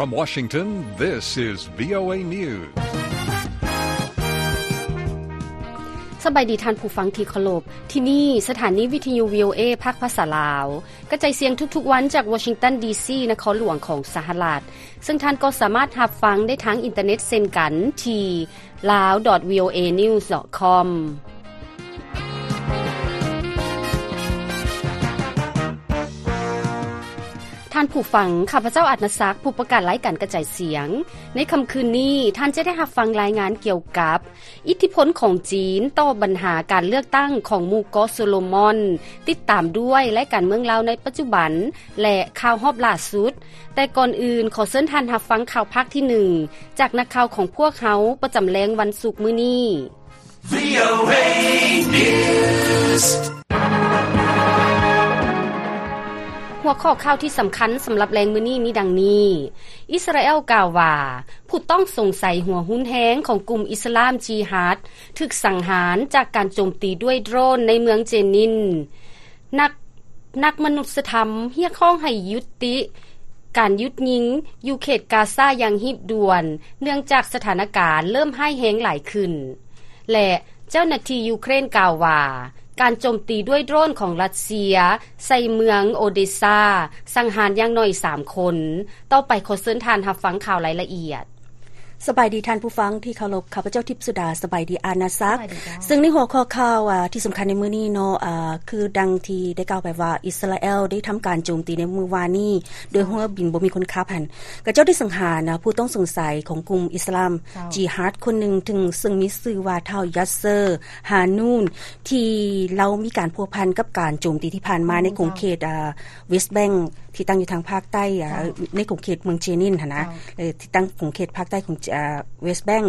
From Washington, this is VOA News. ສະບາຍດີທ່ານຜູ້ຟັງທີ່ເຄົາລົບ, ທີ່ນີ້ສະຖານີວິທະຍຸ VOA ພາກພາສາລາວ ກະຈາຍສຽງທຸກໆວັນຈາກ Washington D C ນະຄອນຫຼວງຂອງສະຫະລັດ, ເຊິ່ງທ່ານກໍສາມາດຮັບຟັງໄດ້ທາງອິນເຕີເນັດເຊັ່ນກັນທີ່ lao.voanews.com. ທ່ານຜູ້ຟັງ, ຂ້າພະເຈົ້າ ອາດນະສັກ ຜູ້ປະກາດລາຍການກະຈາຍສຽງ. ໃນຄ່ຳຄືນນີ້, ທ່ານຈະໄດ້ຮັບຟັງລາຍງານກ່ຽວກັບ ອິດທິພົນຂອງຈີນຕໍ່ບັນຫາການເລືອກຕັ້ງຂອງໝູ່ເກາະໂຊໂລມອນ, ຕິດຕາມດ້ວຍລາຍການເມືອງລາວໃນປັດຈຸບັນ ແລະ ຂ່າວຮອບລ່າສຸດ. ແຕ່ກ່ອນອື່ນ, ຂໍເຊີນທ່ານຮັບຟັງຂ່າວພາກທີໜຶ່ງ ຈາກນັກຂ່າວຂອງພວກເຮົາປະຈຳແລງວັນສຸກມື້ນີ້. VOA News. ຫົວຂໍ້ຂ່າວທີ່ສຳຄັນສຳລັບແລງມື້ນີ້ມີດັ່ງນີ້: ອິດສະຣາແອລກ່າວວ່າ ຜູ້ຕ້ອງສົງໄສຫົວຮຸນແຮງຂອງກຸ່ມອິດສະລາມຈີຮາດ ຖືກສັງຫານຈາກການໂຈມຕີດ້ວຍໂດຣນໃນເມືອງເຈນິນ. ນັກ ນັກມະນຸດສະທຳຮຽກຮ້ອງໃຫ້ຍຸຕິການຢຸດຍິງຢູ່ເຂດກາຊາຢ່າງຮີບດ່ວນ, ເນື່ອງຈາກສະຖານະການເລີ່ມຮ້າຍແຮງຫຼາຍຂຶ້ນ. ແລະ ເຈົ້າໜ້າທີ່ຢູເຄຣນກ່າວວ່າ ການໂຈມຕີດ້ວຍໂດຣນຂອງຣັດເຊຍໃສ່ເມືອງໂອເດຊາ ສັງຫານຢ່າງໜ້ອຍສາມຄົນ. ຕໍ່ໄປຂໍເຊີນທ່ານຮັບຟັງຂ່າວລາຍລະອຽດ. ສະບາຍດີທ່ານຜູ້ຟັງທີ່ເຄົາລົບ, ຂ້າພະເຈົ້າທິບສຸດາ. ສະບາຍດີອານາສັກ. ສະບາຍດີເຈົ້າ. ເຊິ່ງໃນຫົວຂໍ້ຂ່າວ ອາ ທີ່ສຳຄັນໃນມື້ນີ້ເນາະ ອາ ຄືດັ່ງທີ່ໄດ້ກ່າວໄປວ່າ ອິດສະຣາແອລໄດ້ທຳການໂຈມຕີໃນມື້ວານນີ້ໂດຍເຮືອບິນບໍ່ມີຄົນຂັບຫັ້ນ, ຂະເຈົ້າໄດ້ສັງຫານ ອາ ຜູ້ຕ້ອງສົງໄສຂອງກຸ່ມອິດສະລາມ ເຈົ້າ ຈີຮາດຄົນໜຶ່ງ ເຊິ່ງ ເຊິ່ງມີຊື່ວ່າທ້າວ ຢາດເຊີ ຮານູນ ທີ່ລາວມີການພົວພັນກັບການໂຈມຕີທີ່ຜ່ານມາ ໃນຂົງເຂດ ອາ ເວສແບັງ ທີ່ຕັ້ງຢູ່ທາງພາກໃຕ້ ເຈົ້າ ໃນຂົງເຂດເມືອງເຈນິນຫັ້ນນະ ເຈົ້າ ເອີ ທີ່ຕັ້ງຂົງເຂດພາກໃຕ້ຂອງ ອາ ເວສແບັງ.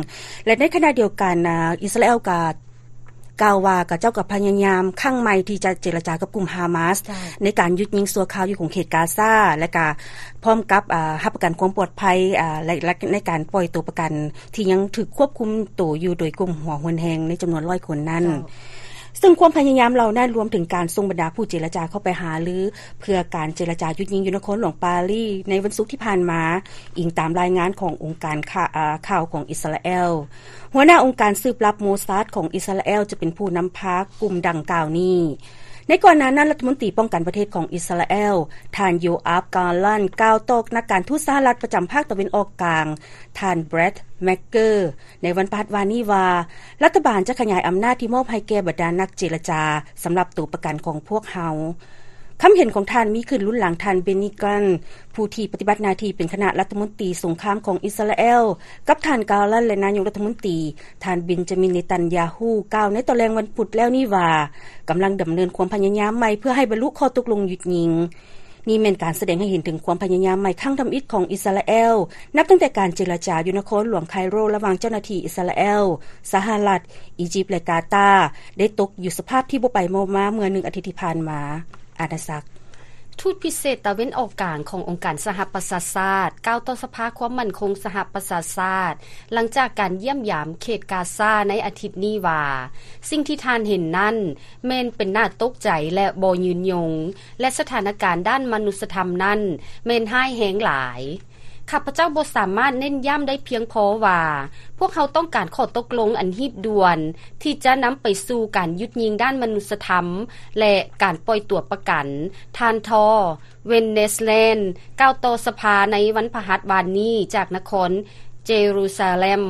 ແລະ ໃນຂະນະດຽວກັນ ອາ ອິດສະຣາແອລກໍກ່າວວ່າ ຂະເຈົ້າກໍພະຍາຍາມຄັ້ງໃໝ່ທີ່ຈະເຈລະຈາກັບກຸ່ມຮາມາສ ເຈົ້າ ໃນການຢຸດຍິງຊົ່ວຄາວຢູ່ຂົງເຂດກາຊາ ແລະ ກໍພ້ອມກັບ ອາ ຮັບປະກັນຄວາມປອດໄພ ອາ ແລະ ແລະ ໃນການປ່ອຍຕົວປະກັນທີ່ຍັງຖືກຄວບຄຸມໂຕຢູ່ໂດຍກຸ່ມຫົວຮຸນແຮງໃນຈຳນວນຮ້ອຍຄົນນັ້ນ. ເຈົ້າ. ເຊິ່ງຄວາມພະຍາຍາມເຫຼົ່ານັ້ນລວມເຖິງການສົ່ງບັນດາຜູ້ເຈລະຈາເຂົ້າໄປຫາລືເພື່ອການເຈລະຈາຢຸດຍິງຢູ່ນະຄອນຫຼວງປາຣີໃນວັນສຸກທີ່ຜ່ານມາ, ອີງຕາມລາຍງານຂອງອົງການຂ່າ ອາ ຂ່າວຂອງອິດສະຣາແອລ. ຫົວໜ້າອົງການສືບລັບໂມຊາດຂອງອິດສະຣາແອລຈະເປັນຜູ້ນຳພາກຸ່ມດັ່ງກ່າວນີ້. ໃນກ່ອນໜ້ານັ້ນ, ລັດຖະມົນຕີປ້ອງກັນປະເທດຂອງອິດສະຣາແອລ ທ່ານ ໂຢອາບ ກາລັນ ກ່າວຕໍ່ນັກການທູດສະຫະລັດປະຈຳພາກຕາເວັນອອກກາງ ທ່ານ ແບຣັດ ແມັກເກີ ໃນວັນພະຫັດວານນີ້ວ່າ ລັດຖະບານຈະຂະຫຍາຍອຳນາດທີ່ມອບໃຫ້ແກ່ບັນດານັກເຈລະຈາສຳລັບຕົວປະກັນຂອງພວກເຮົາ. ຄຳເຫັນຂອງທ່ານມີຂຶ້ນລຸນຫຼັງທ່ານ ເບນນີ ກຣັນ ຜູ້ທີ່ປະຕິບັດໜ້າທີ່ເປັນຄະນະລັດຖະມົນຕີສົງຄາມຂອງອິດສະຣາແອລ ກັບທ່ານ ກາລັນ ແລະ ນາຍົກລັດຖະມົນຕີ ທ່ານ ເບນຈາມິນ ເນຕັນຢາຮູ້ ກ່າວໃນຕອນແລງວັນພຸດແລ້ວນີ້ວ່າ ກຳລັງດຳເນີນຄວາມພະຍາຍາມໃໝ່ເພື່ອໃຫ້ບັນລຸຂໍ້ຕົກລົງຢຸດຍິງ. ນີ້ແມ່ນການສະແດງໃຫ້ເຫັນເຖິງຄວາມພະຍາຍາມໃໝ່ຄັ້ງທຳອິດຂອງອິດສະຣາແອລ ນັບຕັ້ງແຕ່ການເຈລະຈາຢູ່ນະຄອນຫຼວງໄຄໂຣ ລະຫວ່າງເຈົ້າໜ້າທີ່ອິດສະຣາແອລ, ສະຫະລັດ, ອີຢິບ ແລະ ກາຕາ ໄດ້ຕົກຢູ່ສະພາບທີ່ບໍ່ໄປບໍ່ມາເມື່ອໜຶ່ງອາທິດທີ່ຜ່ານມາ. ອານາສັກ. ທູດພິເສດຕາເວັນອອກກາງຂອງອົງການສະຫະປະຊາຊາດ ກ່າວຕໍ່ສະພາຄວາມໝັ້ນຄົງສະຫະປະຊາຊາດ ຫຼັງຈາກການຢ້ຽມຢາມເຂດກາຊາໃນອາທິດນີ້ວ່າ ສິ່ງທີ່ທ່ານເຫັນນັ້ນ ແມ່ນເປັນໜ້າຕົກໃຈ ແລະ ບໍ່ຍືນຍົງ ແລະ ສະຖານະການດ້ານມະນຸດສະທຳນັ້ນແມ່ນຮ້າຍແຮງຫຼາຍ. ຂ້າພະເຈົ້າບໍ່ສາມາດເນັ້ນຢ້ຳໄດ້ພຽງພໍວ່າ ພວກເຮົາຕ້ອງການຂໍ້ຕົກລົງອັນຮີບດ່ວນ ທີ່ຈະນຳໄປສູ່ການຢຸດຍິງດ້ານມະນຸດສະທຳ ແລະ ການປ່ອຍຕົວປະກັນ ທ່ານ ທໍ ເວັນເນສແລນ ກ່າວຕໍ່ສະພາໃນວັນພະຫັດວານນີ້ຈາກນະຄອນເຈຣູຊາເລັມ.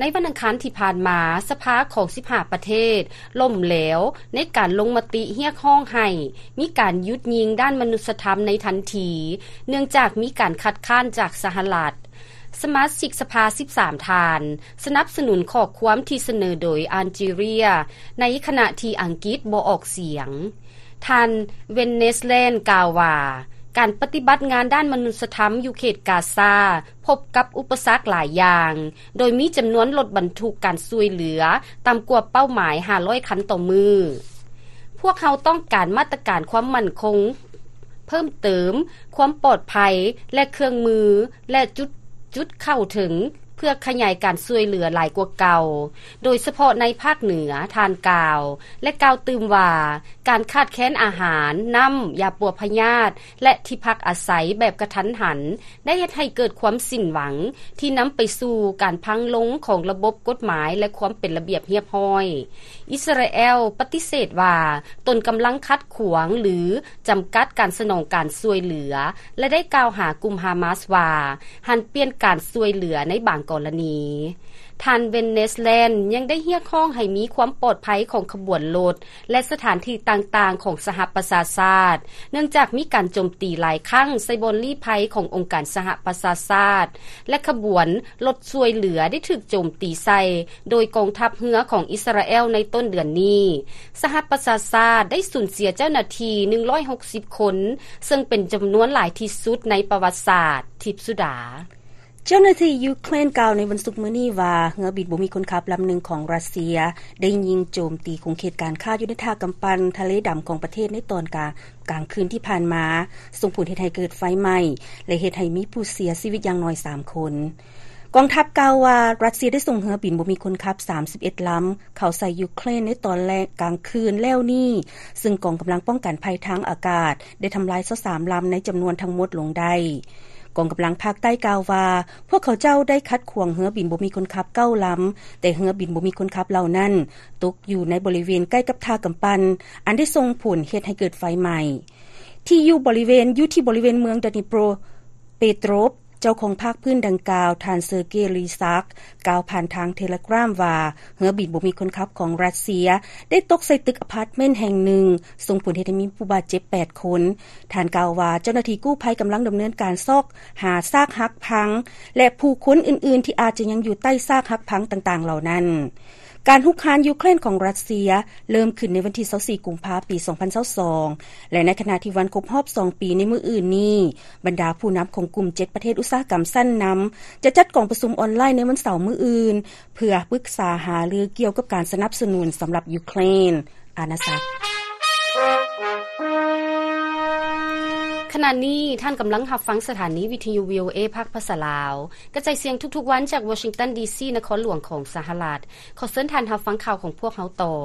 ໃນວັນອັງຄານທີ່ຜ່ານມາ, ສະພາຂອງສິບຫ້າປະເທດລົ້ມແຫຼວໃນການລົງມະຕິຮຽກຮ້ອງໃຫ້ມີການຢຸດຍິງດ້ານມະນຸດສະທຳໃນທັນທີ, ເນື່ອງຈາກມີການຄັດຄ້ານຈາກສະຫະລັດ. ສະມາຊິກສະພາສິບສາມທ່ານສະໜັບສະໜູນຂໍ້ຄວາມທີ່ສະເໜີໂດຍອານຈີເຣຍ, ໃນຂະນະທີ່ອັງກິດບໍ່ອອກສຽງ. ທ່ານ ເວັນເນສແລນ ກ່າວວ່າ ການປະຕິບັດງານດ້ານມະນຸດສະທຳຢູ່ເຂດກາຊາ ພົບກັບອຸປະສັກຫຼາຍຢ່າງ, ໂດຍມີຈຳນວນລົດບັນທຸກການຊ່ວຍເຫຼືອຕ່ຳກວ່າເປົ້າໝາຍຫ້າຮ້ອຍຄັນຕໍ່ມື້. ພວກເຮົາຕ້ອງການມາດຕະການຄວາມໝັ້ນຄົງເພີ່ມເຕີມ, ຄວາມປອດໄພ ແລະ ເຄື່ອງມື ແລະ ຈຸດ, ຈຸດເຂົ້າເຖິງ ເພື່ອຂະຫຍາຍການຊ່ວຍເຫຼືອຫຼາຍກວ່າເກົ່າ, ໂດຍສະເພາະໃນພາກເໜືອ, ທ່ານກ່າວ ແລະ ກ່າວຕື່ມວ່າ ການຂາດແຄນອາຫານ, ນ້ຳ, ຢາປົວພະຍາດ ແລະ ທີ່ພັກອາໄສແບບກະທັນຫັນ ໄດ້ເຮັດໃຫ້ເກີດຄວາມສິ້ນຫວັງ ທີ່ນຳໄປສູ່ການພັງລົງຂອງລະບົບກົດໝາຍ ແລະ ຄວາມເປັນລະບຽບຮຽບຮ້ອຍ. ອິດສະຣາແອລປະຕິເສດວ່າ ຕົນກຳລັງຂັດຂວາງ ຫຼື ຈຳກັດການສະໜອງການຊ່ວຍເຫຼືອ ແລະ ໄດ້ກ່າວຫາກຸ່ມຮາມາສວ່າ ຫັນປ່ຽນການຊ່ວຍເຫຼືອໃນບາງກໍລະນີ. ທ່ານ ເວັນ ເນສແລນ ຍັງໄດ້ຮຽກຮ້ອງໃຫ້ມີຄວາມປອດໄພຂອງຂະບວນລົດ ແລະ ສະຖານທີ່ຕ່າງໆຂອງສະຫະປະຊາຊາດ, ເນື່ອງຈາກມີການໂຈມຕີຫຼາຍຄັ້ງໃສ່ບ່ອນລີ້ໄພຂອງອົງການສະຫະປະຊາຊາດ ແລະ ຂະບວນລົດຊ່ວຍເຫຼືອໄດ້ຖືກໂຈມຕີໃສ່ໂດຍກອງທັບເຮືອຂອງອິດສະຣາແອລໃນຕົ້ນເດືອນນີ້. ສະຫະປະຊາຊາດໄດ້ສູນເສຍເຈົ້າໜ້າທີ່ໜຶ່ງຮ້ອຍຫົກສິບຄົນ, ເຊິ່ງເປັນຈຳນວນຫຼາຍທີ່ສຸດໃນປະຫວັດສາດ. ທິບສຸດາ. ເຈົ້າໜ້າທີ່ຢູເຄຣນກ່າວໃນວັນສຸກມື້ນີ້ວ່າ ເຮືອບິນບໍ່ມີຄົນຂັບລຳໜຶ່ງຂອງຣັດເຊຍ ໄດ້ຍິງໂຈມຕີຂົງເຂດການຄ້າຢູ່ໃນທ່າກຳປັ່ນທະເລດຳຂອງປະເທດໃນຕອນກາງ ກາງຄືນທີ່ຜ່ານມາ, ສົ່ງຜົນເຮັດໃຫ້ເກີດໄຟໄໝ້ ແລະ ເຮັດໃຫ້ມີຜູ້ເສຍຊີວິດຢ່າງໜ້ອຍສາມຄົນ. ກອງທັບກ່າວວ່າ ຣັດເຊຍໄດ້ສົ່ງເຮືອບິນບໍ່ມີຄົນຂັບສາມສິບເອັດລຳ ເຂົ້າໃສ່ຢູເຄຣນໃນຕອນແລງກາງຄືນແລ້ວນີ້, ຊຶ່ງກອງກຳລັງປ້ອງກັນໄພທາງອາກາດໄດ້ທຳລາຍຊາວສາມລຳໃນຈຳນວນທັງໝົດລົງໄດ້. ກອງກຳລັງພາກໃຕ້ກ່າວວ່າ ພວກເຂົາເຈົ້າໄດ້ຂັດຂວາງເຮືອບິນບໍ່ມີຄົນຂັບເກົ້າລຳ, ແຕ່ເຮືອບິນບໍ່ມີຄົນຂັບເຫຼົ່ານັ້ນຕົກຢູ່ໃນບໍລິເວນໃກ້ກັບທ່າກຳປັ່ນ, ອັນໄດ້ສົ່ງຜົນເຮັດໃຫ້ເກີດໄຟໄໝ້. ທີ່ຢູ່ບໍລິເວນ, ຢູ່ທີ່ບໍລິເວນເມືອງ Dnipropetrovsk ເຈົ້າຂອງພາກພື້ນດັ່ງກ່າວ, ທ່ານ Sergei Lysak ກ່າວຜ່ານທາງ Telegram ວ່າ ເຮືອບິນບໍ່ມີຄົນຂັບຂອງຣັດເຊຍໄດ້ຕົກໃສ່ຕຶກອາພາດເມັນແຫ່ງໜຶ່ງ, ສົ່ງຜົນເຮັດໃຫ້ມີຜູ້ບາດເຈັບແປດຄົນ. ທ່ານກ່າວວ່າ ເຈົ້າໜ້າທີ່ກູ້ໄພກຳລັງດຳເນີນການຊອກຫາຊາກຫັກພັງ ແລະ ຜູ້ຄົນອື່ນໆທີ່ອາດຈະຍັງຢູ່ໃຕ້ຊາກຫັກພັງຕ່າງໆເຫຼົ່ານັ້ນ. ການຮຸກຮານຢູເຄຣນຂອງຣັດເຊຍເລີ່ມຂຶ້ນໃນວັນທີຊາວສີ່ ກຸມພາ ປີສອງພັນຊາວສອງ ແລະ ໃນຂະນະທີ່ວັນຄົບຮອບສອງປີໃນມື້ອື່ນນີ້, ບັນດາຜູ້ນຳຂອງກຸ່ມເຈັດປະເທດອຸດສາຫະກຳຊັ້ນນຳ ຈະຈັດກອງປະຊຸມອອນລາຍໃນວັນເສົາມື້ອື່ນ ເພື່ອປຶກສາຫາລືກ່ຽວກັບການສະໜັບສະໜູນສຳລັບຢູເຄຣນ. ອານາສັກ. ຂະນະນີ້ທ່ານກຳລັງຮັບຟັງສະຖານີວິທະຍຸ ວີໂອເອ ພາກພາສາລາວ, ກະຈາຍສຽງທຸກໆວັນຈາກວໍຊິງຕັນ ດີຊີ ນະຄອນຫຼວງຂອງສະຫະລັດ. ຂໍເຊີນທ່ານຮັບຟັງຂ່າວຂອງພວກເຮົາຕໍ່.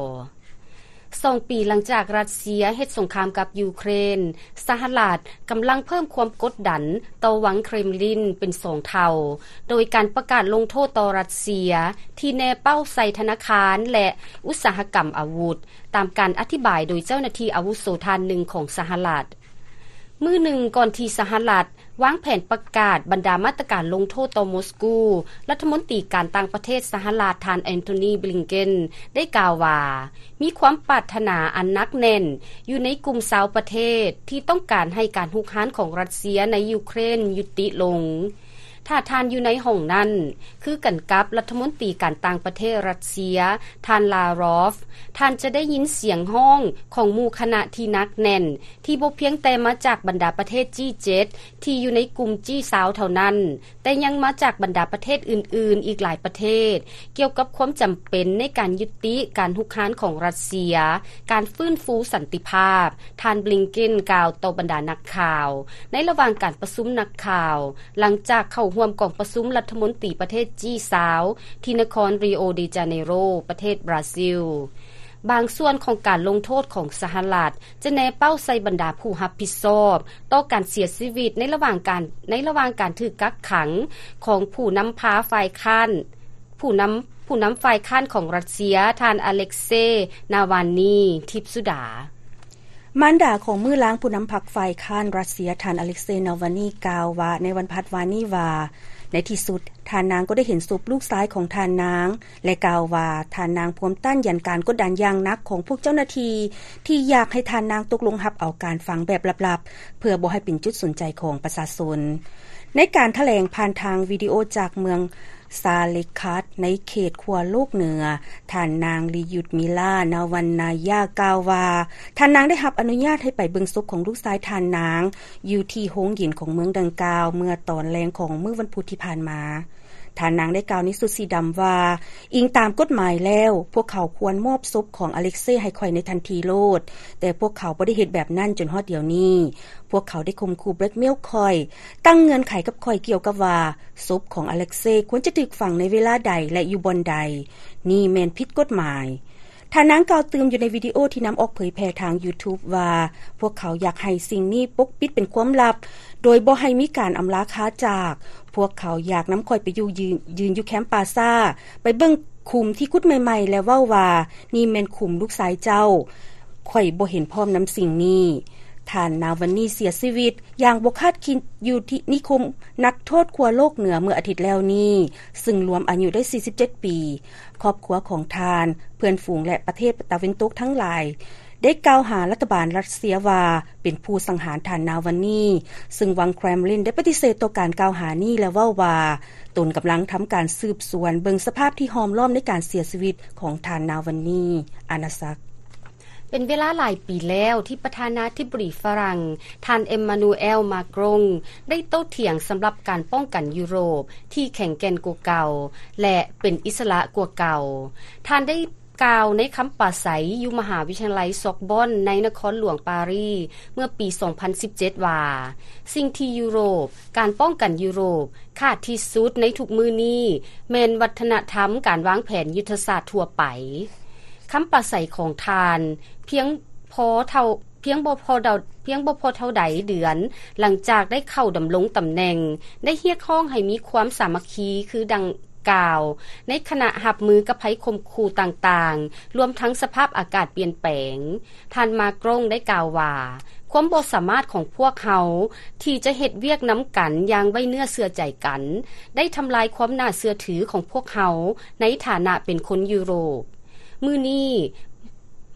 ສອງປີຫຼັງຈາກຣັດເຊຍເຮັດສົງຄາມກັບຢູເຄຣນ, ສະຫະລັດກຳລັງເພີ່ມຄວາມກົດດັນຕໍ່ວັງເຄຣມລິນເປັນສອງເທົ່າ, ໂດຍການປະກາດລົງໂທດຕໍ່ຣັດເຊຍທີ່ແນເປົ້າໃສ່ທະນາຄານ ແລະ ອຸດສາຫະກຳອາວຸດ, ຕາມການອະທິບາຍໂດຍເຈົ້າໜ້າທີ່ອາວຸໂສທ່ານໜຶ່ງຂອງສະຫະລັດ. ມື້ໜຶ່ງກ່ອນທີ່ສະຫະລັດວາງແຜນປະກາດບັນດາມາດຕະການລົງໂທດຕໍ່ມົສກູ, ລັດຖະມົນຕີການຕ່າງປະເທດສະຫະລັດ ທ່ານ ແອນໂທນີ ບລິງເກັນ ໄດ້ກ່າວວ່າ ມີຄວາມປາດຖະໜາອັນໜັກແໜ້ນຢູ່ໃນກຸ່ມຊາວປະເທດທີ່ຕ້ອງການໃຫ້ການຮຸກຮານຂອງຣັດເຊຍໃນຢູເຄຣນຍຸຕິລົງ. ຖ້າທ່ານຢູ່ໃນຫ້ອງນັ້ນ, ຄືກັນກັບລັດຖະມົນຕີການຕ່າງປະເທດຣັດເຊຍ, ທ່ານ ລາຣອຟ, ທ່ານຈະໄດ້ຍິນສຽງຮ້ອງຂອງໝູ່ຄະນະທີ່ໜັກແໜ້ນ, ທີ່ບໍ່ພຽງແຕ່ມາຈາກບັນດາປະເທດ ຈີ ເຈັດ ທີ່ຢູ່ໃນກຸ່ມ ຈີ ຊາວ ເທົ່ານັ້ນ, ແຕ່ຍັງມາຈາກບັນດາປະເທດອື່ນໆອີກຫຼາຍປະເທດ, ກ່ຽວກັບຄວາມຈຳເປັນໃນການຍຸຕິການຮຸກຮານຂອງຣັດເຊຍ, ການຟື້ນຟູສັນຕິພາບ, ທ່ານ ບລິງເກັນ ກ່າວຕໍ່ບັນດານັກຂ່າວ ໃນລະຫວ່າງການປະຊຸມນັກຂ່າວ ຫຼັງຈາກເຂົ້າຮ່ວມກອງປະຊຸມລັດຖະມົນຕີປະເທດ ຈີ ຊາວ ທີ່ນະຄອນ ຣີໂອ ເດ ຈາເນໂຣ ປະເທດບຣາຊິລ. ບາງສ່ວນຂອງການລົງໂທດຂອງສະຫະລັດ ຈະແນເປົ້າໃສ່ບັນດາຜູ້ຮັບຜິດຊອບຕໍ່ການເສຍຊີວິດໃນລະຫວ່າງການ, ໃນລະຫວ່າງການຖືກກັກຂັງຂອງຜູ້ນຳພາຝ່າຍຄ້ານ, ຜູ້ນຳ, ຜູ້ນຳຝ່າຍຄ້ານຂອງຣັດເຊຍ, ທ່ານ ອາເລັກເຊ ນາວານນີ. ທິບສຸດາ. ມານດາຂອງມື້ລ້າງຜູ້ນຳພັກຝ່າຍຄ້ານຣັດເຊຍ ທ່ານ ອາເລັກເຊ ນາວານນີ ກ່າວວ່າ ໃນວັນພັດວານນີ້ວ່າ ໃນທີ່ສຸດ ທ່ານນາງກໍໄດ້ເຫັນສົບລູກຊາຍຂອງທ່ານນາງ ແລະ ກ່າວວ່າ ທ່ານນາງພວມຕ້ານຢັນການກົດດັນຢ່າງໜັກຂອງພວກເຈົ້າໜ້າທີ່ ທີ່ຢາກໃຫ້ທ່ານນາງຕົກລົງຮັບເອົາການຝັງແບບລັບໆ ເພື່ອບໍ່ໃຫ້ເປັນຈຸດສົນໃຈຂອງປະຊາຊົນ. ໃນການຖະແຫຼງຜ່ານທາງວິດີໂອຈາກເມືອງ ຊາເລັກຄັດ ໃນເຂດຂົ້ວໂລກເໜືອ, ທ່ານນາງ ລີຢຸດມິລາ ນາວັນນາຍາ ກ່າວວ່າ ທ່ານນາງໄດ້ຮັບອະນຸຍາດໃຫ້ໄປເບິ່ງສົບຂອງລູກຊາຍທ່ານນາງ ຢູ່ທີ່ໂຮງເຢັນຂອງເມືອງດັ່ງກ່າວ ເມື່ອຕອນແລງຂອງມື້ວັນພຸດທີ່ຜ່ານມາ. ທ່ານນາງໄດ້ກ່າວໃນຊຸດສີດຳວ່າ, ອີງຕາມກົດໝາຍແລ້ວ, ພວກເຂົາຄວນມອບສົບຂອງອາເລັກເຊໃຫ້ຂ້ອຍໃນທັນທີໂລດ, ແຕ່ພວກເຂົາບໍ່ໄດ້ເຮັດແບບນັ້ນຈົນຮອດດຽວນີ້. ພວກເຂົາໄດ້ຂົ່ມຂູ່ແບລັກເມວຂ້ອຍ, ຕັ້ງເງື່ອນໄຂກັບຂ້ອຍກ່ຽວກັບວ່າ ສົບຂອງອາເລັກເຊຄວນຈະຖືກຝັງໃນເວລາໃດ ແລະ ຢູ່ບ່ອນໃດ. ນີ້ແມ່ນຜິດກົດໝາຍ. ທ່ານນາງກ່າວຕື່ມຢູ່ໃນວິດີໂອທີ່ນຳອອກເຜີຍແຜ່ທາງ YouTube ວ່າ, ພວກເຂົາຢາກໃຫ້ສິ່ງນີ້ປົກປິດເປັນຄວາມລັບ, ໂດຍບໍ່ໃຫ້ມີການອຳລາຄາຈາກ. ພວກເຂົາຢາກນຳຂ້ອຍໄປຢູ່ ຢືນ ຢືນຢູ່ແຄມປາຊາ, ໄປເບິ່ງຂຸມທີ່ຂຸດໃໝ່ໆ ແລະ ເວົ້າວ່າ, ນີ້ແມ່ນຂຸມລູກຊາຍເຈົ້າ. ຂ້ອຍບໍ່ເຫັນພ້ອມນຳສິ່ງນີ້. ທ່ານນາວານນີເສຍຊີວິດຢ່າງບໍ່ຄາດຄິດຢູ່ທີ່ນິຄົມນັກໂທດຂົ້ວໂລກເໜືອເມື່ອອາທິດແລ້ວນີ້, ຊຶ່ງລວມອາຍຸໄດ້ສີ່ສິບເຈັດປີ. ຄອບຄົວຂອງທ່ານ, ເພື່ອນຝູງ ແລະ ປະເທດຕາເວັນຕົກທັງຫຼາຍ ໄດ້ກ່າວຫາລັດຖະບານຣັດເຊຍວ່າເປັນຜູ້ສັງຫານທ່ານນາວານນີ, ຊຶ່ງວັງແຄຣມລິນໄດ້ປະຕິເສດຕໍ່ການກ່າວຫານີ້ ແລະ ເວົ້າວ່າ ຕົນກຳລັງທຳການສືບສວນເບິ່ງສະພາບທີ່ຫ້ອມລ້ອມໃນການເສຍຊີວິດຂອງທ່ານນາວານນີ. ອານາສັກ. ເປັນເວລາຫຼາຍປີແລ້ວທີ່ປະທານາທິບໍດີຝຣັ່ງ ທ່ານ ເອມມານູແອລ ມາກຣອງ ໄດ້ໂຕ້ຖຽງສຳລັບການປ້ອງກັນຢູໂຣບທີ່ແຂງແກ່ນກວ່າເກົ່າ ແລະ ເປັນອິດສະຫຼະກວ່າເກົ່າ. ທ່ານໄດ້ກ່າວໃນຄຳປາໄສຢູ່ມະຫາວິທະຍາໄລຊອກບອນໃນນະຄອນຫຼວງປາຣີເມື່ອປີສອງພັນສິບເຈັດວ່າ, ສິ່ງທີ່ຢູໂຣບ, ການປ້ອງກັນຢູໂຣບ ຂາດທີ່ສຸດໃນທຸກມື້ນີ້ແມ່ນວັດທະນະທຳການວາງແຜນຍຸດທະສາດທົ່ວໄປ. ຄຳປາໄສຂອງທ່ານພຽງພໍເທົ່າ, ພຽງບໍ່ພໍເທົ່າ, ພຽງບໍ່ພໍເທົ່າໃດເດືອນຫຼັງຈາກໄດ້ເຂົ້າດຳລົງຕຳແໜ່ງ, ໄດ້ຮຽກຮ້ອງໃຫ້ມີຄວາມສາມັກຄີຄືດັ່ງກ່າວ ໃນຂະນະຮັບມືກັບໄພຂົ່ມຂູ່ຕ່າງໆ, ລວມທັງສະພາບອາກາດປ່ຽນແປງ. ທ່ານ ມາກຣອງ ໄດ້ກ່າວວ່າ, ຄວາມບໍ່ສາມາດຂອງພວກເຮົາທີ່ຈະເຮັດວຽກນຳກັນຢ່າງໄວ້ເນື້ອເຊື່ອໃຈກັນ ໄດ້ທຳລາຍຄວາມໜ້າເຊື່ອຖືຂອງພວກເຮົາໃນຖານະເປັນຄົນຢູໂຣບ. ມື້ນີ້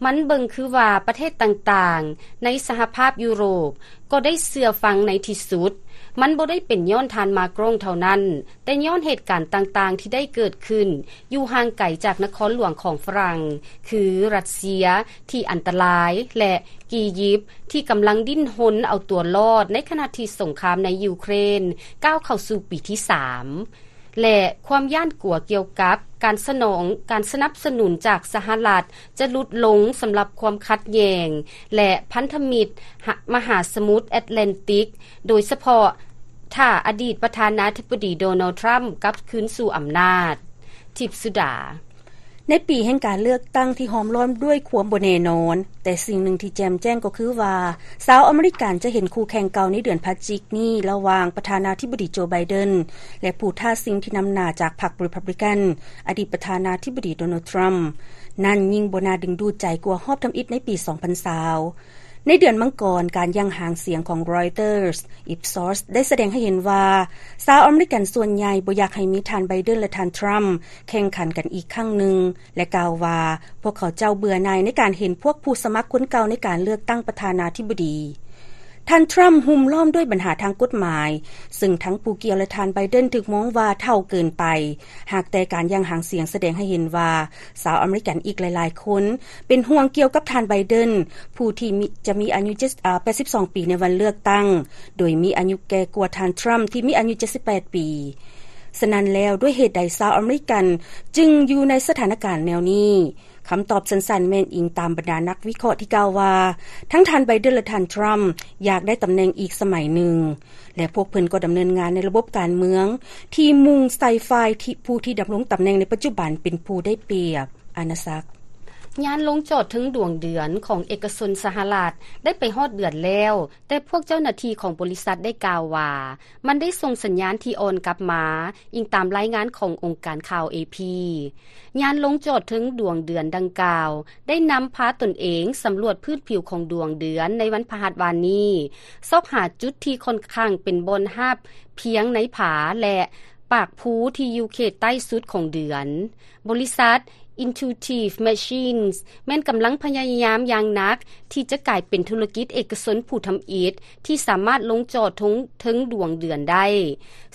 ມັນເບິ່ງຄືວ່າປະເທດຕ່າງໆໃນສະຫະພາບຢູໂຣບກໍໄດ້ເຊື່ອຟັງໃນທີ່ສຸດ. ມັນບໍ່ໄດ້ເປັນຍ້ອນທ່ານ ມາກຣອງ ເທົ່ານັ້ນ, ແຕ່ຍ້ອນເຫດການຕ່າງໆທີ່ໄດ້ເກີດຂຶ້ນຢູ່ຫ່າງໄກຈາກນະຄອນຫຼວງຂອງຝຣັ່ງ ຄືຣັດເຊຍທີ່ອັນຕະລາຍ ແລະ ອີຢິບທີ່ກຳລັງດີ້ນຮົນເອົາຕົວລອດ ໃນຂະນະທີ່ສົງຄາມໃນຢູເຄຣນກ້າວເຂົ້າສູ່ປີທີສາມ ແລະ ຄວາມຢ້ານກົວກ່ຽວກັບການສະໜອງ, ການສະໜັບສະໜູນຈາກສະຫະລັດຈະຫຼຸດລົງສຳລັບຄວາມຂັດແຍ່ງ ແລະ ພັນທະມິດມະຫາສະໝຸດແອັດແລນຕິກ, ໂດຍສະເພາະ ຖ້າອະດີດປະທານາທິບໍດີ ໂດນັລ ທຣຳ ກັບຄືນສູ່ອຳນາດ. ທິບສຸດາ. ໃນປີແຫ່ງການເລືອກຕັ້ງທີ່ຫ້ອມລ້ອມດ້ວຍຄວາມບໍ່ແນ່ນອນ, ແຕ່ສິ່ງໜຶ່ງທີ່ແຈ່ມແຈ້ງກໍຄືວ່າ ຊາວອາເມລິກັນຈະເຫັນຄູ່ແຂ່ງເກົ່າໃນເດືອນພະຈິກນີ້ ລະຫວ່າງປະທານາທິບໍດີ ໂຈ ໄບເດັນ ແລະ ຜູ້ທ້າຊິງທີ່ນຳໜ້າຈາກພັກ Republican, ອະດີດປະທານາທິບໍດີ ໂດນັລ ທຣຳ ນັ້ນຍິ່ງບໍ່ໜ້າດຶງດູດໃຈກວ່າຮອບທຳອິດໃນປີສອງພັນຊາວ. ໃນເດືອນມັງກອນ, ການຢ່າງຫາງສຽງຂອງ Reuters, Ipsos ໄດ້ສະແດງໃຫ້ເຫັນວ່າ ຊາວອາເມລິກັນສ່ວນໃຫຍ່ບໍ່ຢາກໃຫ້ມີທ່ານ ໄບເດັນ ແລະ ທ່ານ ທຣຳ ແຂ່ງຂັນກັນອີກຄັ້ງໜຶ່ງ ແລະ ກ່າວວ່າ ພວກເຂົາເຈົ້າເບື່ອໜ່າຍໃນການເຫັນພວກຜູ້ສະໝັກຄົນເກົ່າໃນການເລືອກຕັ້ງປະທານາທິບໍດີ. ທ່ານ ທຣຳ ຫຸ້ມລ້ອມດ້ວຍບັນຫາທາງກົດໝາຍ, ເຊິ່ງທັງຜູ້ກ່ຽວ ແລະ ທ່ານ ໄບເດັນ ຖືກມອງວ່າເຖົ້າເກີນໄປ. ຫາກແຕ່ການຢ່າງຫາງສຽງສະແດງໃຫ້ເຫັນວ່າ ຊາວອາເມລິກັນອີກຫຼາຍໆຄົນເປັນຫ່ວງກ່ຽວກັບທ່ານ ໄບເດັນ ຜູ້ທີ່ມີ, ຈະມີອາຍຸເຈັດ, ອາ, ແປດສິບສອງປີໃນວັນເລືອກຕັ້ງ, ໂດຍມີອາຍຸແກ່ກວ່າທ່ານ ທຣຳ ທີ່ມີອາຍຸເຈັດສິບແປດປີ. ສະນັ້ນແລ້ວ, ດ້ວຍເຫດໃດຊາວອາເມລິກັນຈຶ່ງຢູ່ໃນສະຖານະການແນວນີ້? ຄຳຕອບສັ້ນໆແມ່ນອີງຕາມບັນດານັກວິເຄາະທີ່ກ່າວວ່າ ທັງທ່ານ ໄບເດັນ ແລະ ທ່ານ ທຣຳ ຢາກໄດ້ຕຳແໜ່ງອີກສະໄໝໜຶ່ງ ແລະ ພວກເພິ່ນກໍດຳເນີນງານໃນລະບົບການເມືອງທີ່ມຸ່ງໃສ່ຝ່າຍທີ່ ຜູ້ທີ່ດຳລົງຕຳແໜ່ງໃນປັດຈຸບັນເປັນຜູ້ໄດ້ປຽບ. ອານາສັກ. ຍານລົງຈອດເທິງດວງເດືອນຂອງເອກະຊົນສະຫະລັດໄດ້ໄປຮອດເດືອນແລ້ວ, ແຕ່ພວກເຈົ້າໜ້າທີ່ຂອງບໍລິສັດໄດ້ກ່າວວ່າ ມັນໄດ້ສົ່ງສັນຍານທີ່ອ່ອນກັບມາ, ອີງຕາມລາຍງານຂອງອົງການຂ່າວ ເອພີ. ຍານລົງຈອດເທິງດວງເດືອນດັ່ງກ່າວ ໄດ້ນຳພາຕົນເອງສຳຫຼວດພື້ນຜິວຂອງດວງເດືອນໃນວັນພະຫັດວານນີ້, ຊອກຫາຈຸດທີ່ຂ້ອນຂ້າງເປັນບ່ອນຮາບພຽງໃນຜາ ແລະ ປາກພູທີ່ຢູ່ເຂດໃຕ້ສຸດຂອງເດືອນ. ບໍລິສັດ Intuitive Machines ແມ່ນກຳລັງພະຍາຍາມຢ່າງໜັກທີ່ຈະກາຍເປັນທຸລະກິດເອກະຊົນຜູ້ທຳອິດທີ່ສາມາດລົງຈອດເທິງ ເທິງດວງເດືອນໄດ້,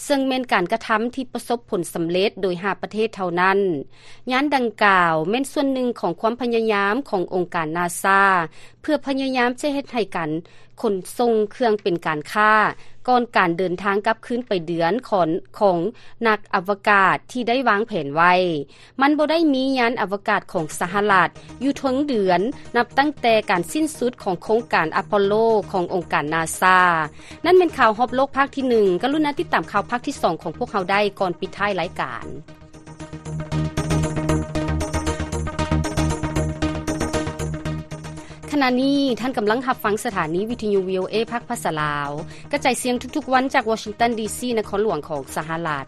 ເຊິ່ງແມ່ນການກະທຳທີ່ປະສົບຜົນສຳເລັດໂດຍຫ້າປະເທດເທົ່ານັ້ນ. ຍານດັ່ງກ່າວແມ່ນສ່ວນໜຶ່ງຂອງຄວາມພະຍາຍາມຂອງອົງການນາຊາ ເພື່ອພະຍາຍາມຈະເຮັດໃຫ້ການຂົນສົ່ງເຄື່ອງເປັນການຄ້າ ກ່ອນການເດີນທາງກັບຄືນໄປເດືອນຂອງ ຂອງນັກອະວະກາດທີ່ໄດ້ວາງແຜນໄວ້. ມັນບໍ່ໄດ້ມີຍານອະວະກາດຂອງສະຫະລັດຢູ່ເທິງເດືອນ ນັບຕັ້ງແຕ່ການສິ້ນສຸດຂອງໂຄງການອາໂປໂລຂອງອົງການນາຊາ. ນັ້ນແມ່ນຂ່າວຮອບໂລກພາກທີໜຶ່ງ. ກະລຸນາຕິດຕາມຂ່າວພາກທີສອງຂອງພວກເຮົາໄດ້ກ່ອນປິດທ້າຍລາຍການ. ຂະນະນີ້ທ່ານກຳລັງຮັບຟັງສະຖານີວິທະຍຸ ວີໂອເອ ພາກພາສາລາວ ກະຈາຍສຽງທຸກໆວັນຈາກວໍຊິງຕັນ ດີຊີ ນະຄອນຫຼວງຂອງສະຫະລັດ.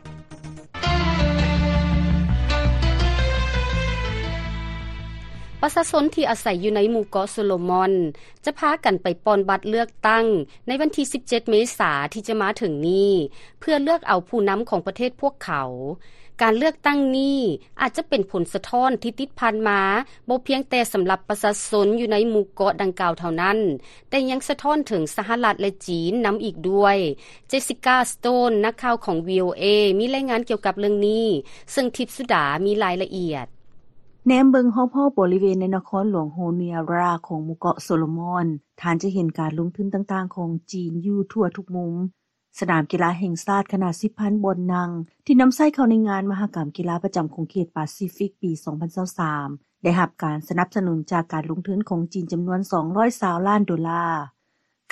ປະຊາຊົນທີ່ອາໄສຢູ່ໃນໝູ່ເກາະໂຊໂລມອນ ຈະພາກັນໄປປ່ອນບັດເລືອກຕັ້ງໃນວັນທີສິບເຈັດເມສາທີ່ຈະມາເຖິງນີ້ ເພື່ອເລືອກເອົາຜູ້ນຳຂອງປະເທດພວກເຂົາ. ການເລືອກຕັ້ງນີ້ອາດຈະເປັນຜົນສະທ້ອນທີ່ຕິດພັນມາ ບໍ່ພຽງແຕ່ສຳລັບປະຊາຊົນຢູ່ໃນໝູ່ເກາະດັ່ງກ່າວເທົ່ານັ້ນ, ແຕ່ຍັງສະທ້ອນເຖິງສະຫະລັດ ແລະ ຈີນນຳອີກດ້ວຍ. ເຈສຊິກາ ສະໂຕນ ນັກຂ່າວຂອງ ວີໂອເອ ມີລາຍງານກ່ຽວກັບເລື່ອງນີ້, ເຊິ່ງທິບສຸດາມີລາຍລະອຽດ. ແນມເບິ່ງຮອບໆບໍລິເວນໃນນະຄອນຫຼວງໂຮເນຍຣາຂອງໝູ່ເກາະໂຊໂລມອນ, ທ່ານຈະເຫັນການລົງທຶນຕ່າງໆຂອງຈີນຢູ່ທົ່ວທຸກມຸມ. ສະໜາມກິລາແຫ່ງຊາດຂະໜາດສິບພັນບ່ອນນັ່ງ ທີ່ນຳໃຊ້ເຂົ້າໃນງານມະຫະກຳກິລາປະຈຳຂົງເຂດປາຊີຟິກປີສອງພັນຊາວສາມ ໄດ້ຮັບການສະໜັບສະໜູນຈາກການລົງທຶນຂອງຈີນຈຳນວນສອງຮ້ອຍຊາວລ້ານໂດລາ.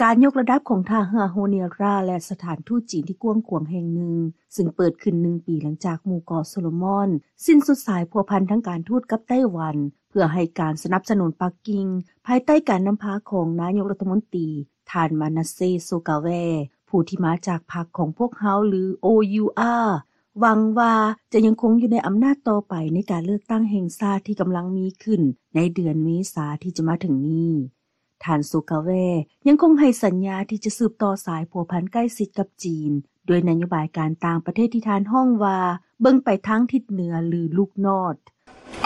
ການຍົກລະດັບຂອງທ່າເຮືອໂຮເນຍຣາ ແລະ ສະຖານທູດຈີນທີ່ກວ້າງຂວາງແຫ່ງໜຶ່ງ, ຊຶ່ງເປີດຂຶ້ນໜຶ່ງປີຫຼັງຈາກໝູ່ເກາະໂຊໂລມອນສິ້ນສຸດສາຍພົວພັນທາງການທູດກັບໄຕ້ຫວັນ, ເພື່ອໃຫ້ການສະໜັບສະໜູນປັກກິ່ງ ພາຍໃຕ້ການນຳພາຂອງນາຍົກລັດຖະມົນຕີ ທ່ານ ມານາເຊ ໂຊກາແວ ຜູ້ທີ່ມາຈາກພັກຂອງພວກເຮົາ ຫຼື ໂອຢູອາ ຫວັງວ່າຈະຍັງຄົງຢູ່ໃນອຳນາດຕໍ່ໄປໃນການເລືອກຕັ້ງແຫ່ງຊາດທີ່ກຳລັງມີຂຶ້ນໃນເດືອນເມສາທີ່ຈະມາເຖິງນີ້. ທ່ານ ໂຊກາແວ ຍັງຄົງໃຫ້ສັນຍາທີ່ຈະສືບຕໍ່ສາຍພົວພັນໃກ້ຊິດກັບຈີນ ດ້ວຍນະໂຍບາຍການຕ່າງປະເທດທີ່ທ່ານຮ້ອງວ່າ ເບິ່ງໄປທາງທິດເໜືອ ຫຼື Look North.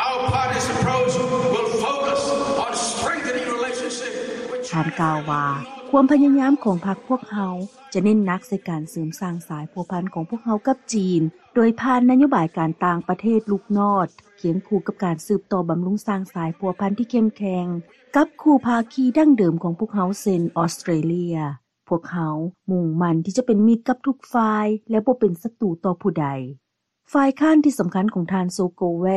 Our party's approach will focus on strengthening relationship with China. ທ່ານກ່າວວ່າ ຄວາມພະຍາຍາມຂອງພັກພວກເຮົາຈະເນັ້ນໜັກໃສ່ການເສີມສ້າງສາຍພົວພັນຂອງພວກເຮົາກັບຈີນ ໂດຍຜ່ານນະໂຍບາຍການຕ່າງປະເທດ Look North ຄຽງຄູ່ກັບການສືບຕໍ່ບຳລຸງສ້າງສາຍພົວພັນທີ່ເຂັ້ມແຂງກັບຄູ່ພາຄີດັ້ງເດີມຂອງພວກເຮົາ ເຊັ່ນ ອອສເຕຣເລຍ. ພວກເຮົາມຸ່ງໝັ້ນທີ່ຈະເປັນມິດກັບທຸກຝ່າຍ ແລະ ບໍ່ເປັນສັດຕູຕໍ່ຜູ້ໃດ. ຝ່າຍຄ້ານທີ່ສຳຄັນຂອງທ່ານ ໂຊໂກແວ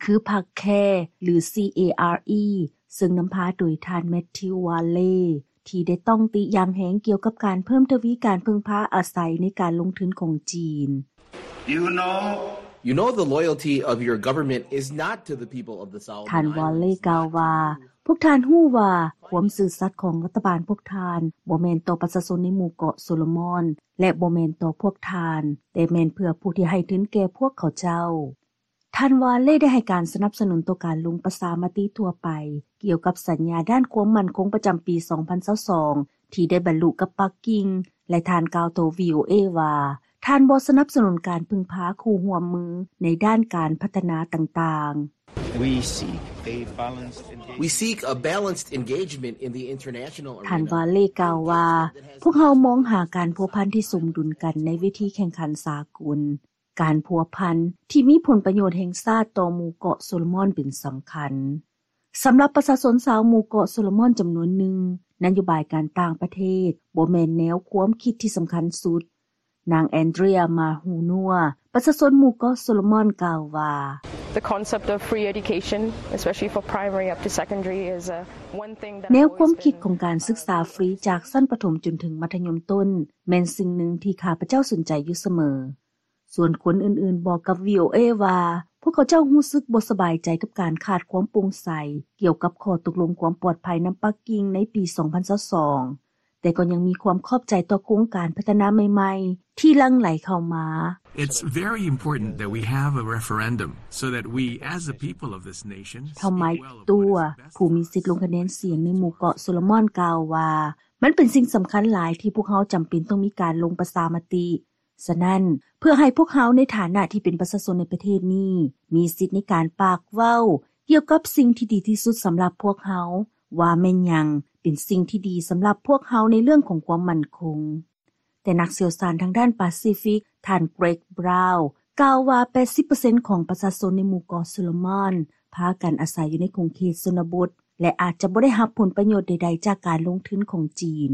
ຄືພັກ CARE ຫຼື CARE ເຊິ່ງນຳພາໂດຍທ່ານ ແມັດທິວ ວາເລ ທີ່ໄດ້ຕ້ອງຕິຢ່າງແຮງກ່ຽວກັບການເພີ່ມທະວີການເພິ່ງພາອາໄສໃນການລົງທຶນຂອງຈີນ. You know, you know the loyalty of your government is not to the people of the Solomon Islands. ທ່ານ ວາເລ ກ່າວວ່າ ພວກທ່ານຮູ້ວ່າຄວາມຊື່ສັດຂອງລັດຖະບານພວກທ່ານບໍ່ແມ່ນຕໍ່ປະຊາຊົນໃນໝູ່ເກາະໂຊໂລມອນ ແລະ ບໍ່ແມ່ນຕໍ່ພວກທ່ານ, ແຕ່ແມ່ນເພື່ອຜູ້ທີ່ໃຫ້ທຶນແກ່ພວກເຂົາເຈົ້າ. ທ່ານ ວາເລ ໄດ້ໃຫ້ການສະໜັບສະໜູນຕໍ່ການລົງປະຊາມະຕິທົ່ວໄປ ກ່ຽວກັບສັນຍາດ້ານຄວາມໝັ້ນຄົງປະຈຳປີສອງພັນຊາວສອງ ທີ່ໄດ້ບັນລຸກັບປັກກິ່ງ ແລະ ທ່ານກ່າວຕໍ່ ວີໂອເອ ວ່າ ທ່ານບໍ່ສະໜັບສະໜູນການເພິ່ງພາຄູ່ຮ່ວມມືໃນດ້ານການພັດທະນາຕ່າງໆ. We seek a balanced engagement. We seek a balanced engagement in the international arena. ທ່ານ ວາເລ ກ່າວວ່າ ພວກເຮົາມອງຫາການພົວພັນທີ່ສົມດຸນກັນໃນເວທີແຂ່ງຂັນສາກົນ. ການພົວພັນທີ່ມີຜົນປະໂຫຍດແຫ່ງຊາດຕໍ່ໝູ່ເກາະໂຊໂລມອນເປັນສຳຄັນ. ສຳລັບປະຊາຊົນຊາວໝູ່ເກາະໂຊໂລມອນຈຳນວນໜຶ່ງ, ນະໂຍບາຍການຕ່າງປະເທດບໍ່ແມ່ນແນວຄວາມຄິດທີ່ສຳຄັນສຸດ. ນາງ ແອນເດຣຍ ມາຮູນົວ ປະຊາຊົນໝູ່ເກາະໂຊໂລມອນ ກ່າວວ່າ The concept of free education, especially for primary up to secondary, is, uh, one thing that ແນວຄວາມຄິດຂອງການສຶກສາຟຣີຈາກຊັ້ນປະຖົມຈົນເຖິງມັດທະຍົມຕົ້ນ ແມ່ນສິ່ງໜຶ່ງທີ່ຂ້າພະເຈົ້າສົນໃຈຢູ່ສະເໝີ. ສ່ວນຄົນອື່ນໆບອກກັບ ວີໂອເອ ວ່າ ພວກເຂົາເຈົ້າຮູ້ສຶກບໍ່ສະບາຍໃຈກັບການຂາດຄວາມໂປ່ງໃສກ່ຽວກັບຂໍ້ຕົກລົງຄວາມປອດໄພນຳປັກກິ່ງໃນປີສອງພັນຊາວສອງ, ແຕ່ກໍຍັງມີຄວາມຂອບໃຈຕໍ່ໂຄງການພັດທະນາໃໝ່ໆທີ່ຫຼັ່ງໄຫຼເຂົ້າມາ. It's very important that we have a referendum so that we, as the people of this nation, ທ່ານ ໄມ ຕົວ ຜູ້ມີສິດລົງຄະແນນສຽງໃນໝູ່ເກາະໂຊໂລມອນ ກ່າວວ່າ ມັນເປັນສິ່ງສຳຄັນຫຼາຍທີ່ພວກເຮົາຈຳເປັນຕ້ອງມີການລົງປະຊາມະຕິ. ສະນັ້ນ, ເພື່ອໃຫ້ພວກເຮົາໃນຖານະທີ່ເປັນປະຊາຊົນໃນປະເທດນີ້ ມີສິດໃນການປາກເວົ້າກ່ຽວກັບສິ່ງທີ່ດີທີ່ສຸດສຳລັບພວກເຮົາ, ວ່າແມ່ນຫຍັງເປັນສິ່ງທີ່ດີສຳລັບພວກເຮົາໃນເລື່ອງຂອງຄວາມໝັ້ນຄົງ. ແຕ່ນັກຊ່ຽວຊານທາງດ້ານປາຊີຟິກ ທ່ານ ເກຣັກ ບຣາວ ກ່າວວ່າ ແປດສິບເປີເຊັນຂອງປະຊາຊົນໃນໝູ່ເກາະໂຊໂລມອນ ພາກັນອາໄສຢູ່ໃນຂົງເຂດຊົນນະບົດ ແລະ ອາດຈະບໍ່ໄດ້ຮັບຜົນປະໂຫຍດໃດໆຈາກການລົງທຶນຂອງຈີນ.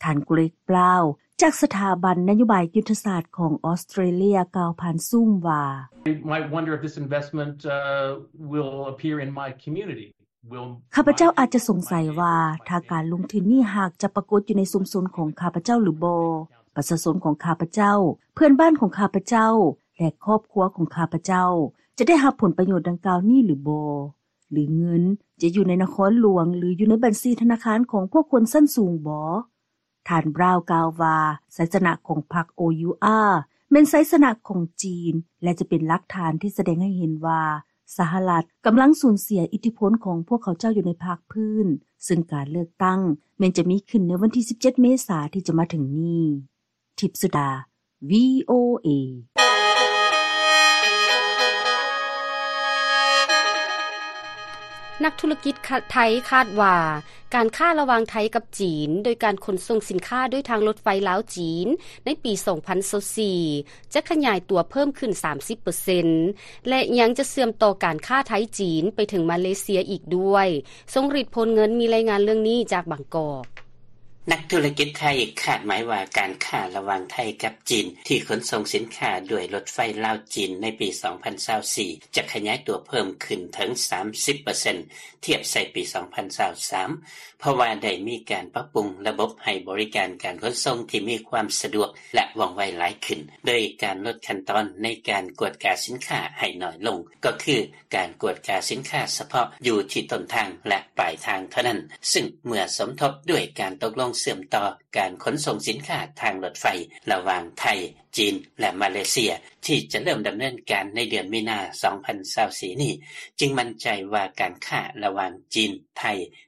ທ່ານ ເກຣັກ ບຣາວ ຈາກສະຖາບັນນະໂຍບາຍຍຸດທະສາດຂອງອອສເຕຣເລັຽ ກ່າວຜ່ານຊູມວ່າ I might wonder if this investment, uh, will appear in my community. Will ຂ້າພະເຈົ້າອາດຈະສົງໄສວ່າ ຖ້າການລົງທຶນນີ້ຫາກຈະປາກົດຢູ່ໃນຊຸມຊົນຂອງຂ້າພະເຈົ້າຫຼືບໍ່, ປະຊາຊົນຂອງຂ້າພະເຈົ້າ, ເພື່ອນບ້ານຂອງຂ້າພະເຈົ້າ ແລະ ຄອບຄົວຂອງຂ້າພະເຈົ້າ ຈະໄດ້ຮັບຜົນປະໂຫຍດດັ່ງກ່າວນີ້ຫຼືບໍ່? ຫຼືເງິນຈະຢູ່ໃນນະຄອນຫຼວງ ຫຼືຢູ່ໃນບັນຊີທະນາຄານຂອງພວກຄົນຊັ້ນສູງບໍ? ທ່ານ Brown ກ່າວວ່າ ໄຊຊະນະຂອງພັກ ໂອ ຢູ ອາ ແມ່ນໄຊຊະນະຂອງຈີນ ແລະ ຈະເປັນຫຼັກຖານທີ່ສະແດງໃຫ້ເຫັນວ່າ ສະຫະລັດກຳລັງສູນເສຍອິດທິພົນຂອງພວກເຂົາເຈົ້າຢູ່ໃນພາກພື້ນ, ເຊິ່ງການເລືອກຕັ້ງແມ່ນຈະມີຂຶ້ນໃນວັນທີສິບເຈັດ ເມສາທີ່ຈະມາເຖິງນີ້. ທິບສຸດາ ວີ ໂອ ເອ. ນັກທຸລະກິດໄທຄາດວ່າ ການຄ້າລະຫວ່າງໄທກັບຈີນ ໂດຍການຂົນສົ່ງສິນຄ້າດ້ວຍທາງລົດໄຟລາວ-ຈີນ ໃນປີສອງພັນຊາວສີ່ ຈະຂະຫຍາຍຕົວເພີ່ມຂຶ້ນສາມສິບເປີເຊັນ ແລະ ຍັງຈະເຊື່ອມຕໍ່ການຄ້າໄທ-ຈີນໄປເຖິງມາເລເຊຍອີກດ້ວຍ. ຊົງລິດ ໂພນເງິນ ມີລາຍງານເລື່ອງນີ້ຈາກບາງກອກ. ນັກທຸລະກິດໄທຄາດໝາຍວ່າ ການຄ້າລະຫວ່າງໄທກັບຈີນ ທີ່ຂົນສົ່ງສິນຄ້າດ້ວຍລົດໄຟລາວ-ຈີນໃນປີສອງພັນຊາວສີ່ ຈະຂະຫຍາຍຕົວເພີ່ມຂຶ້ນເຖິງສາມສິບເປີເຊັນ ທຽບໃສ່ປີສອງພັນຊາວສາມ ເພາະວ່າໄດ້ມີການປັບປຸງລະບົບໃຫ້ບໍລິການການຂົນສົ່ງທີ່ມີຄວາມສະດວກ ແລະ ວ່ອງໄວຫຼາຍຂຶ້ນ ໂດຍການລົດຂັ້ນຕອນໃນການກວດກາສິນຄ້າໃຫ້ໜ້ອຍລົງ ກໍຄື ການກວດກາສິນຄ້າສະເພາະຢູ່ທີ່ຕົ້ນທາງ ແລະ ປາຍທາງເທົ່ານັ້ນ, ຊຶ່ງເມື່ອສົມທົບດ້ວຍການຕົກລົງເຊື່ອມຕໍ່ການຂົນສົ່ງສິນຄ້າທາງລົດໄຟລະຫວ່າງໄທ, ຈີນ ແລະ ມາເລເຊຍ ທີ່ຈະເລີ່ມດຳເນີນການໃນເດືອນມີນາ ສອງພັນຊາວສີ່ນີ້, ຈຶ່ງໝັ້ນໃຈວ່າການຄ້າລະຫວ່າງຈີນ-ໄທ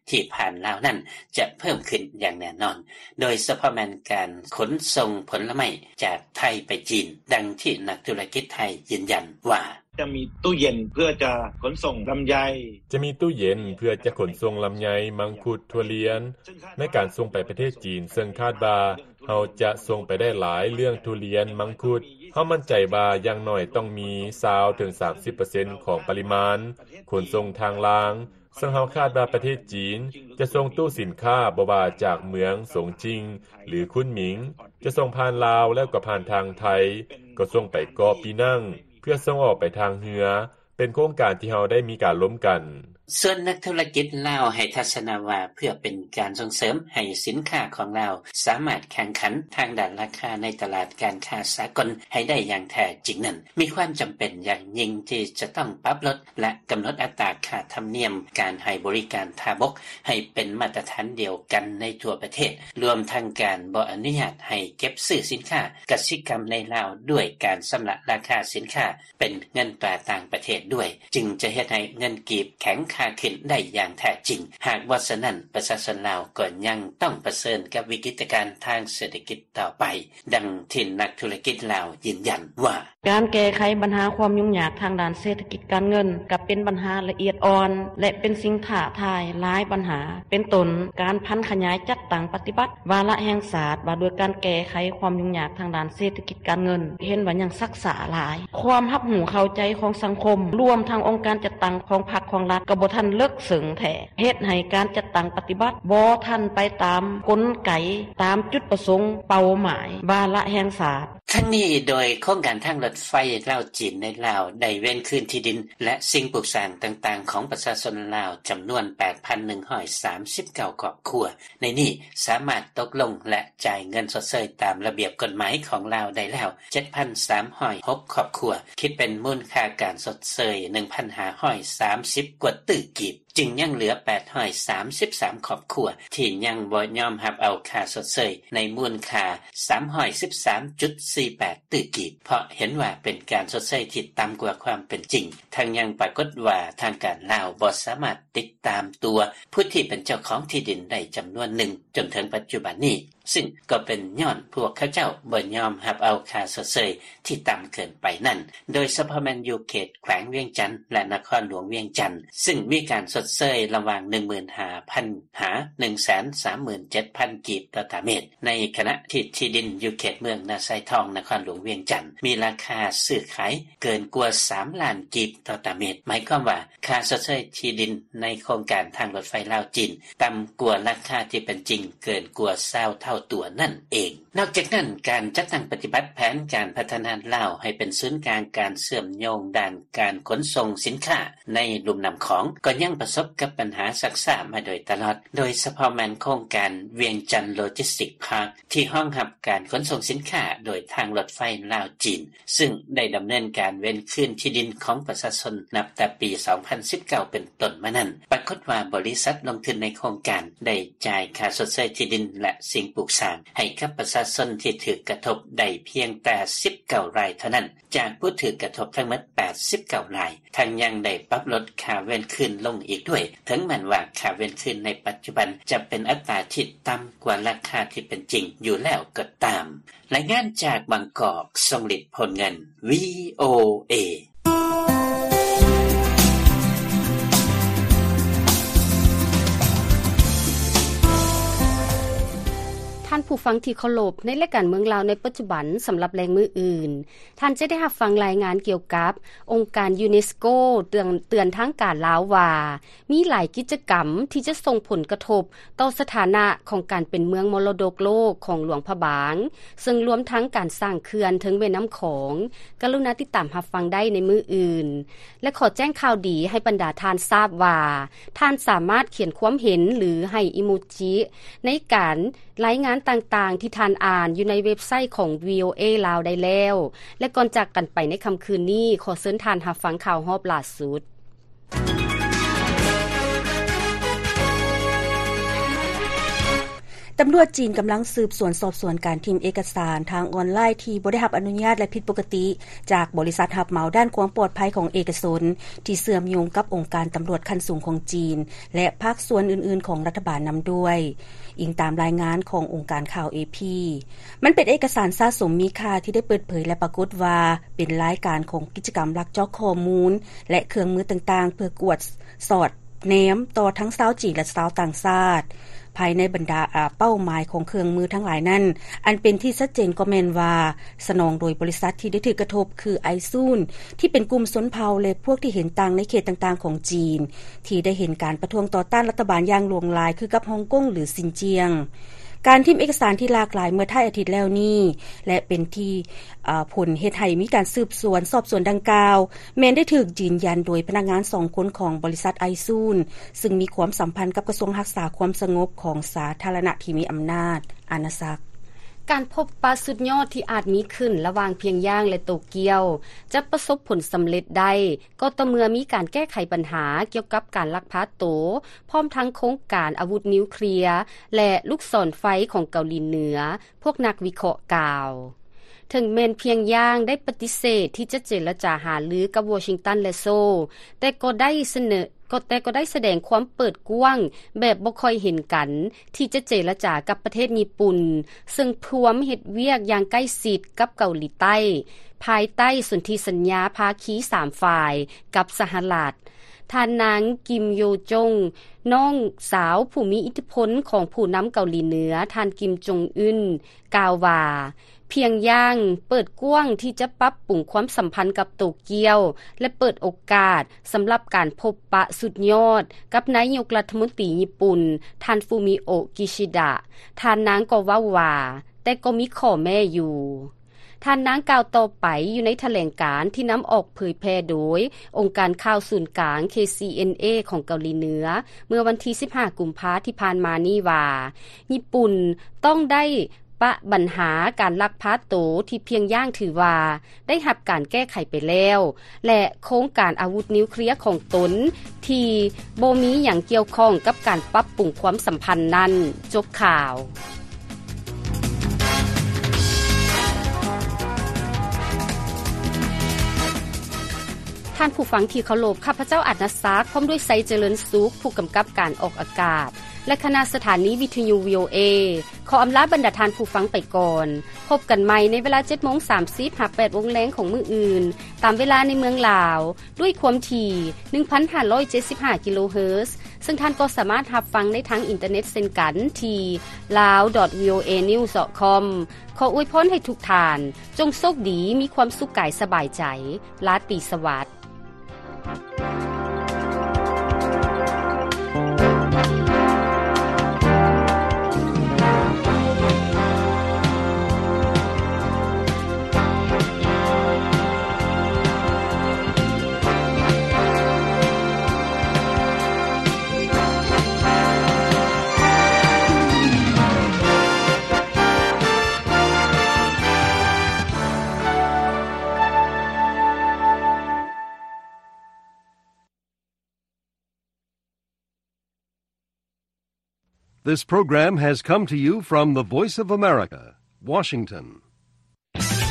ທີ່ຜ່ານລາວນັ້ນຈະເພີ່ມຂຶ້ນຢ່າງແນ່ນອນ, ໂດຍສະເພາະແມ່ນການຂົນສົ່ງຜົນລະໄມ້ຈາກໄທໄປຈີນ, ດັ່ງທີ່ນັກທຸລະກິດໄທຢືນຢັນວ່າ ຈະມີຕູ້ເຢັນເພື່ອຈະຂົນສົ່ງລຳໄຍ ຈະມີຕູ້ເຢັນເພື່ອຈະຂົນສົ່ງລຳໄຍ, ມັງຄຸດ, ຖົ່ວລຽນ ໃນການສົ່ງໄປປະເທດຈີນ, ເຊິ່ງຄາດວ່າເຮົາຈະສົ່ງໄປໄດ້ຫຼາຍເລື່ອງທຸລຽນ, ມັງຄຸດ. ເຮົາໝັ້ນໃຈວ່າຢ່າງໜ້ອຍຕ້ອງມີຊາວເຖິງສາມສິບເປີເຊັນຂອງປະລິມານຂົນສົ່ງທາງລາງ, ເຊິ່ງເຮົາຄາດວ່າປະເທດຈີນຈະສົ່ງຕູ້ສິນຄ້າ ບໍ່ວ່າຈາກເມືອງສົງຈິງ ຫຼື ຄຸນໝິງ, ຈະສົ່ງຜ່ານລາວ ແລ້ວກໍຜ່ານທາງໄທ, ກໍສົ່ງໄປເກາະປີນັງ ເພື່ອສົ່ງອອກໄປທາງເຮືອ, ເປັນໂຄງການທີ່ເຮົາໄດ້ມີການລົມກັນ. ສ່ວນນັກທຸລະກິດລາວໃຫ້ທັດສະນະວ່າ ເພື່ອເປັນການສົ່ງເສີມໃຫ້ສິນຄ້າຂອງລາວສາມາດແຂ່ງຂັນທາງດ້ານລາຄາໃນຕະຫຼາດການຄ້າສາກົນໃຫ້ໄດ້ຢ່າງແທ້ຈິງນັ້ນ, ມີຄວາມຈຳເປັນຢ່າງຍິ່ງທີ່ຈະຕ້ອງປັບລົດ ແລະ ກຳນົດອັດຕາຄ່າທຳນຽມການໃຫ້ບໍລິການທ່າບົກໃຫ້ເປັນມາດຕະຖານດຽວກັນໃນທົ່ວປະເທດ, ລວມທັງການບໍ່ອະນຸຍາດໃຫ້ເກັບຊື້ສິນຄ້າກະສິກຳໃນລາວດ້ວຍການຊຳລະລາຄາສິນຄ້າ ເປັນເງິນຕາຕ່າງປະເທດດ້ວຍ, ຈຶ່ງຈະເຮັດໃຫ້ເງິນກີບແຂງຄ່າຂຶ້ນໄດ້ຢ່າງແທ້ຈິງ. ຫາກບໍ່ສະນັ້ນ, ປະຊາຊົນລາວກໍຍັງຕ້ອງປະເຊີນກັບວິກິດຕະການທາງເສດຖະກິດຕໍ່ໄປ, ດັ່ງທີ່ນັກທຸລະກິດລາວຢືນຢັນວ່າ ການແກ້ໄຂບັນຫາຄວາມຫຍຸ້ງຍາກທາງດ້ານເສດຖະກິດການເງິນ ກໍເປັນບັນຫາລະອຽດອ່ອນ ແລະ ເປັນສິ່ງທ້າທາຍຫຼາຍບັນຫາ, ເປັນຕົ້ນ ການຜັນຂະຫຍາຍຈັດຕັ້ງປະຕິບັດວາລະແຫ່ງຊາດວ່າດ້ວຍການແກ້ໄຂຄວາມຫຍຸ້ງຍາກທາງດ້ານເສດຖະກິດ ການເງິນ ເຫັນວ່າຍັງຊັກຊ້າຫຼາຍ, ຄວາມຮັບຮູ້ເຂົ້າໃຈຂອງສັງຄົມ ລວມທັງອົງການຈັດຕັ້ງຂອງພັກຂອງລັດ ກໍບໍ່ທັນເລິກເຊິ່ງແທ້, ເຮັດໃຫ້ການຈັດຕັ້ງປະຕິບັດບໍ່ທັນໄປຕາມກົນໄກ, ຕາມຈຸດປະສົງເປົ້າໝາຍວາລະແຫ່ງຊາດ. ທັງນີ້ ໂດຍໂຄງການທາງລົດໄຟລາວ-ຈີນໃນລາວ ໄດ້ເວນຄືນທີ່ດິນ ແລະ ສິ່ງປຸກສ້າງຕ່າງໆຂອງປະຊາຊົນລາວ ຈຳນວນ ແປດພັນໜຶ່ງຮ້ອຍສາມສິບເກົ້າຄອບຄົວ. ໃນນີ້ສາມາດຕົກລົງ ແລະ ຈ່າຍເງິນຊົດເຊີຍຕາມລະບຽບກົດໝາຍຂອງລາວໄດ້ແລ້ວ ເຈັດພັນສາມຮ້ອຍຫົກຄອບຄົວ, ຄິດເປັນມູນຄ່າການຊົດເຊີຍ ໜຶ່ງພັນຫ້າຮ້ອຍສາມສິບກວ່າຕື້ກີບ, ຈຶ່ງຍັງເຫຼືອ ແປດຮ້ອຍສາມສິບສາມຄອບຄົວ ທີ່ຍັງບໍ່ຍອມຮັບເອົາຄ່າຊົດເຊີຍໃນມູນຄ່າ ສາມຮ້ອຍສິບສາມຈຸດສີ່ແປດຕື້ກີບ, ເພາະເຫັນວ່າເປັນການຊົດເຊີຍທີ່ຕ່ຳກວ່າຄວາມເປັນຈິງ. ທັງຍັງປາກົດວ່າທາງການລາວບໍ່ສາມາດຕິດຕາມຕົວຜູ້ທີ່ເປັນເຈົ້າຂອງທີ່ດິນໄດ້ຈຳນວນໜຶ່ງຈົນເຖິງປັດຈຸບັນນີ້, ຊຶ່ງກໍເປັນຍ້ອນພວກເຂົາເຈົ້າບໍ່ຍອມຮັບເອົາຄ່າຊົດເຊີຍທີ່ຕ່ຳເກີນໄປນັ້ນ, ໂດຍສະເພາະແມ່ນຢູ່ເຂດແຂວງວຽງຈັນ ແລະ ນະຄອນຫຼວງວຽງຈັນ, ຊຶ່ງມີການຊົດ ດເຊີຍລະຫວ່າງ ໜຶ່ງໝື່ນຫ້າພັນ ຫາ ໜຶ່ງແສນສາມໝື່ນເຈັດພັນ ກີບຕໍ່ຕາເມັດ, ໃນຂະນະທີ່ທີ່ດິນຢູ່ເຂດເມືອງນາຊາຍທອງ ນະຄອນຫຼວງວຽງຈັນ ມີລາຄາຊື້ຂາຍເກີນກວ່າ ສາມລ້ານ ກີບຕໍ່ຕາເມັດ, ໝາຍຄວາມວ່າ ຄ່າຊົດເຊີຍທີ່ດິນໃນໂຄງການທາງລົດໄຟລາວ-ຈີນ ຕ່ຳກວ່າລາຄາທີ່ເປັນຈິງເກີນກວ່າ ຊາວເທົ່າຕົວນັ້ນເອງ. ນອກຈາກນັ້ນ, ການຈັດຕັ້ງປະຕິບັດແຜນການພັດທະນາລາວໃຫ້ເປັນສູນກາງການເຊື່ອມໂຍງດ້ານການຂົນສົ່ງສິນຄ້າໃນລຸ່ມນ້ຳຂອງ ກໍຍັງປະສົບກັບບັນຫາຊັກຊ້າມາໂດຍຕະຫຼອດ, ໂດຍສະເພາະແມ່ນໂຄງການວຽງຈັນໂລຈິສຕິກພາກ ທີ່ຮອງຮັບການຂົນສົ່ງສິນຄ້າໂດຍທາງລົດໄຟລາວ-ຈີນ, ຊຶ່ງໄດ້ດຳເນີນການເວນຄືນທີ່ດິນຂອງປະຊາຊົນນັບແຕ່ປີສອງພັນສິບເກົ້າເປັນຕົ້ນມານັ້ນ, ປາກົດວ່າບໍລິສັດລົງທຶນໃນໂຄງການໄດ້ຈ່າຍຄ່າຊົດເຊີຍທີ່ດິນ ແລະ ສິ່ງປູກສ້າງໃຫ້ກັບປະຊາຊົນທີ່ຖືກກະທົບໄດ້ພຽງແຕ່ສິບເກົ້າລາຍເທົ່ານັ້ນ ຈາກຜູ້ຖືກກະທົບທັງໝົດແປດສິບເກົ້າລາຍ, ທັງຍັງໄດ້ປັບລົດຄ່າເວນຄືນລົງອີກດ້ວຍ, ເຖິງແມ່ນວ່າຄ່າເວນຄືນໃນປັດຈຸບັນຈະເປັນອັດຕາທີ່ຕ່ຳກວ່າລາຄາທີ່ເປັນຈິງຢູ່ແລ້ວກໍຕາມ. ລາຍງານຈາກບາງກອກ, ຊົງລິດ ໂພນເງິນ ວີໂອເອ. ທ່ານຜູ້ຟັງທີ່ເຄົາລົບ, ໃນລາຍການເມືອງລາວໃນປັດຈຸບັນ ສຳລັບແລງມື້ອື່ນ, ທ່ານຈະໄດ້ຮັບຟັງລາຍງານກ່ຽວກັບ ອົງການຢູເນສໂກ ເຕືອນ ເຕືອນທາງການລາວວ່າ ມີຫຼາຍກິດຈະກຳທີ່ຈະສົ່ງຜົນກະທົບຕໍ່ສະຖານະຂອງການເປັນເມືອງມໍລະດົກໂລກຂອງຫຼວງພະບາງ, ເຊິ່ງລວມທັງການສ້າງເຂື່ອນເທິງແມ່ນ້ຳຂອງ. ກະລຸນາຕິດຕາມຮັບຟັງໄດ້ໃນມື້ອື່ນ. ແລະ ຂໍແຈ້ງຂ່າວດີໃຫ້ບັນດາທ່ານຊາບວ່າ ທ່ານສາມາດຂຽນຄວາມເຫັນ ຫຼື ໃຫ້ອີໂມຈິໃນການ ລາຍງານຕ່າງໆທີ່ທ່ານອ່ານຢູ່ໃນເວັບໄຊຂອງ ວີໂອເອ ລາວໄດ້ແລ້ວ. ແລະ ກ່ອນຈາກກັນໄປໃນຄ່ຳຄືນນີ້, ຂໍເຊີນທ່ານຮັບຟັງຂ່າວຮອບຫຼ້າສຸດ. ຕຳຫຼວດຈີນກຳລັງສືບສວນສອບສວນການຖິ້ມເອກະສານທາງອອນລາຍທີ່ບໍ່ໄດ້ຮັບອະນຸຍາດ ແລະ ຜິດປົກກະຕິຈາກບໍລິສັດຮັບເໝົາດ້ານຄວາມປອດໄພຂອງເອກະຊົນ ທີ່ເຊື່ອມໂຍງກັບອົງການຕຳຫຼວດຂັ້ນສູງຂອງຈີນ ແລະ ພາກສ່ວນອື່ນໆຂອງລັດຖະບານນຳດ້ວຍ. ອີງຕາມລາຍງານຂອງອົງການຂ່າວ ເອພີ, ມັນເປັນເອກະສານສະສົມມີຄ່າທີ່ໄດ້ເປີດເຜີຍ ແລະ ປາກົດວ່າເປັນລາຍການຂອງກິດຈະກຳລັກຈອກຂໍ້ມູນ ແລະ ເຄື່ອງມືຕ່າງໆ ເພື່ອກວດສອດແນມຕໍ່ທັງຊາວຈີນ ແລະ ຊາວຕ່າງຊາດ. ພາຍໃນບັນດາ ອາ ເປົ້າໝາຍຂອງເຄື່ອງມືທັງຫຼາຍນັ້ນ, ອັນເປັນທີ່ຊັດເຈນກໍແມ່ນວ່າ ສະໜອງໂດຍບໍລິສັດທີ່ໄດ້ຖືກກະທົບ ຄື ໄອຊູນ ທີ່ເປັນກຸ່ມຊົນເຜົ່າ ແລະ ພວກທີ່ເຫັນຕ່າງໃນເຂດຕ່າງໆຂອງຈີນ ທີ່ໄດ້ເຫັນການປະທ້ວງຕໍ່ຕ້ານລັດຖະບານຢ່າງຫຼວງຫຼາຍ ຄືກັບຮົງກົງ ຫຼື ຊິນຈຽງ. ການຖິ້ມເອກະສານທີ່ຫຼາກຫຼາຍເມື່ອທ້າຍອາທິດແລ້ວນີ້ ແລະ ເປັນທີ່ ອາ ຜົນເຮັດໃຫ້ມີການສືບສວນສອບສວນດັ່ງກ່າວ ແມ່ນໄດ້ຖືກຢືນຢັນໂດຍພະນັກງານສອງຄົນຂອງບໍລິສັດໄອຊູນ ຊຶ່ງມີຄວາມສຳພັນກັບກະຊວງຮັກສາຄວາມສະຫງົບຂອງສາທາລະນະທີ່ມີອຳນາດອານາຈັກ. ການພົບປະສຸດຍອດທີ່ອາດມີຂຶ້ນລະຫວ່າງພຽງຢາງ ແລະ ໂຕກຽວ ຈະປະສົບຜົນສຳເລັດໄດ້ ກໍຕໍ່ເມື່ອມີການແກ້ໄຂບັນຫາກ່ຽວກັບການລັກພາໂຕ ພ້ອມທັງໂຄງການອາວຸດນິວເຄລຍ ແລະ ລູກສອນໄຟຂອງເກົາຫຼີເໜືອ, ພວກນັກວິເຄາະກ່າວ. ເຖິງແມ່ນພຽງຢາງໄດ້ປະຕິເສດທີ່ຈະເຈລະຈາຫາລືກັບວໍຊິງຕັນ ແລະ ໂຊ, ແຕ່ກໍໄດ້ສະເໜີ, ກໍ, ແຕ່ກໍໄດ້ສະແດງຄວາມເປີດກວ້າງແບບບໍ່ຄ່ອຍເຫັນກັນ ທີ່ຈະເຈລະຈາກັບປະເທດຍີ່ປຸ່ນ, ເຊິ່ງພວມເຮັດວຽກຢ່າງໃກ້ຊິດກັບເກົາຫຼີໃຕ້ ພາຍໃຕ້ສົນທິສັນຍາພາຄີສາມຝ່າຍກັບສະຫະລັດ. ທ່ານນາງ ກິມ ໂຢຈົງ, ນ້ອງສາວຜູ້ມີອິດທິພົນຂອງຜູ້ນຳເກົາຫຼີເໜືອ ທ່ານ ກິມ ຈົງອຶນ ກ່າວວ່າ ພຽງຢາງເປີດກວ້າງທີ່ຈະປັບປຸງຄວາມສຳພັນກັບໂຕກຽວ ແລະ ເປີດໂອກາດສຳລັບການພົບປະສຸດຍອດກັບນາຍົກລັດຖະມົນຕີຍີ່ປຸ່ນ ທ່ານ ຟູມິໂອະ ກິຊິດະ. ທ່ານນາງກໍເວົ້າວ່າ, ແຕ່ກໍມີຂໍ້ແມ້ຢູ່. ທ່ານນາງກ່າວຕໍ່ໄປຢູ່ໃນຖະແຫຼງການທີ່ນຳອອກເຜີຍແຜ່ໂດຍອົງການຂ່າວສູນກາງ ເຄຊີເອັນເອ ຂອງເກົາຫຼີເໜືອ ເມື່ອວັນທີສິບຫ້າ ກຸມພາທີ່ຜ່ານມານີ້ວ່າ, ຍີ່ປຸ່ນຕ້ອງໄດ້ປະບັນຫາການລັກພາໂຕທີ່ພຽງຢາງຖືວ່າໄດ້ຮັບການແກ້ໄຂໄປແລ້ວ ແລະ ໂຄງການອາວຸດນິວເຄລຍຂອງຕົນທີ່ບໍ່ມີຫຍັງກ່ຽວຂ້ອງກັບການປັບປຸງຄວາມສຳພັນນັ້ນ. ຈົບຂ່າວ. ທ່ານຜູ້ຟັງທີ່ເຄົາລົບ, ຂ້າພະເຈົ້າອາດນະສັກ ພ້ອມດ້ວຍໄຊເຈະເລີນສຸກ ຜູ້ກຳກັບການອອກອາກາດ ແລະ ຄະນະສະຖານີວິທະຍຸ ວີໂອເອ ຂໍອຳລາບັນດາທ່ານຜູ້ຟັງໄປກ່ອນ. ພົບກັນໃໝ່ໃນເວລາເຈັດໂມງສາມສິບ ຫາ ແປດໂມງແລງຂອງມື້ອື່ນ ຕາມເວລາໃນເມືອງລາວ ດ້ວຍຄວາມຖີ່ ໜຶ່ງພັນຫ້າຮ້ອຍເຈັດສິບຫ້າ ກິໂລເຮີດ, ເຊິ່ງທ່ານກໍສາມາດຮັບຟັງໄດ້ທາງອິນເຕີເນັດເຊັ່ນກັນ ທີ່ lawdotvoanews.com. ຂໍອວຍພອນໃຫ້ທຸກທ່ານ ຈົ່ງໂຊກດີ, ມີຄວາມສຸກກາຍສະບາຍໃຈ. ລາຕີສະຫວັດ. This program has come to you from the Voice of America, Washington.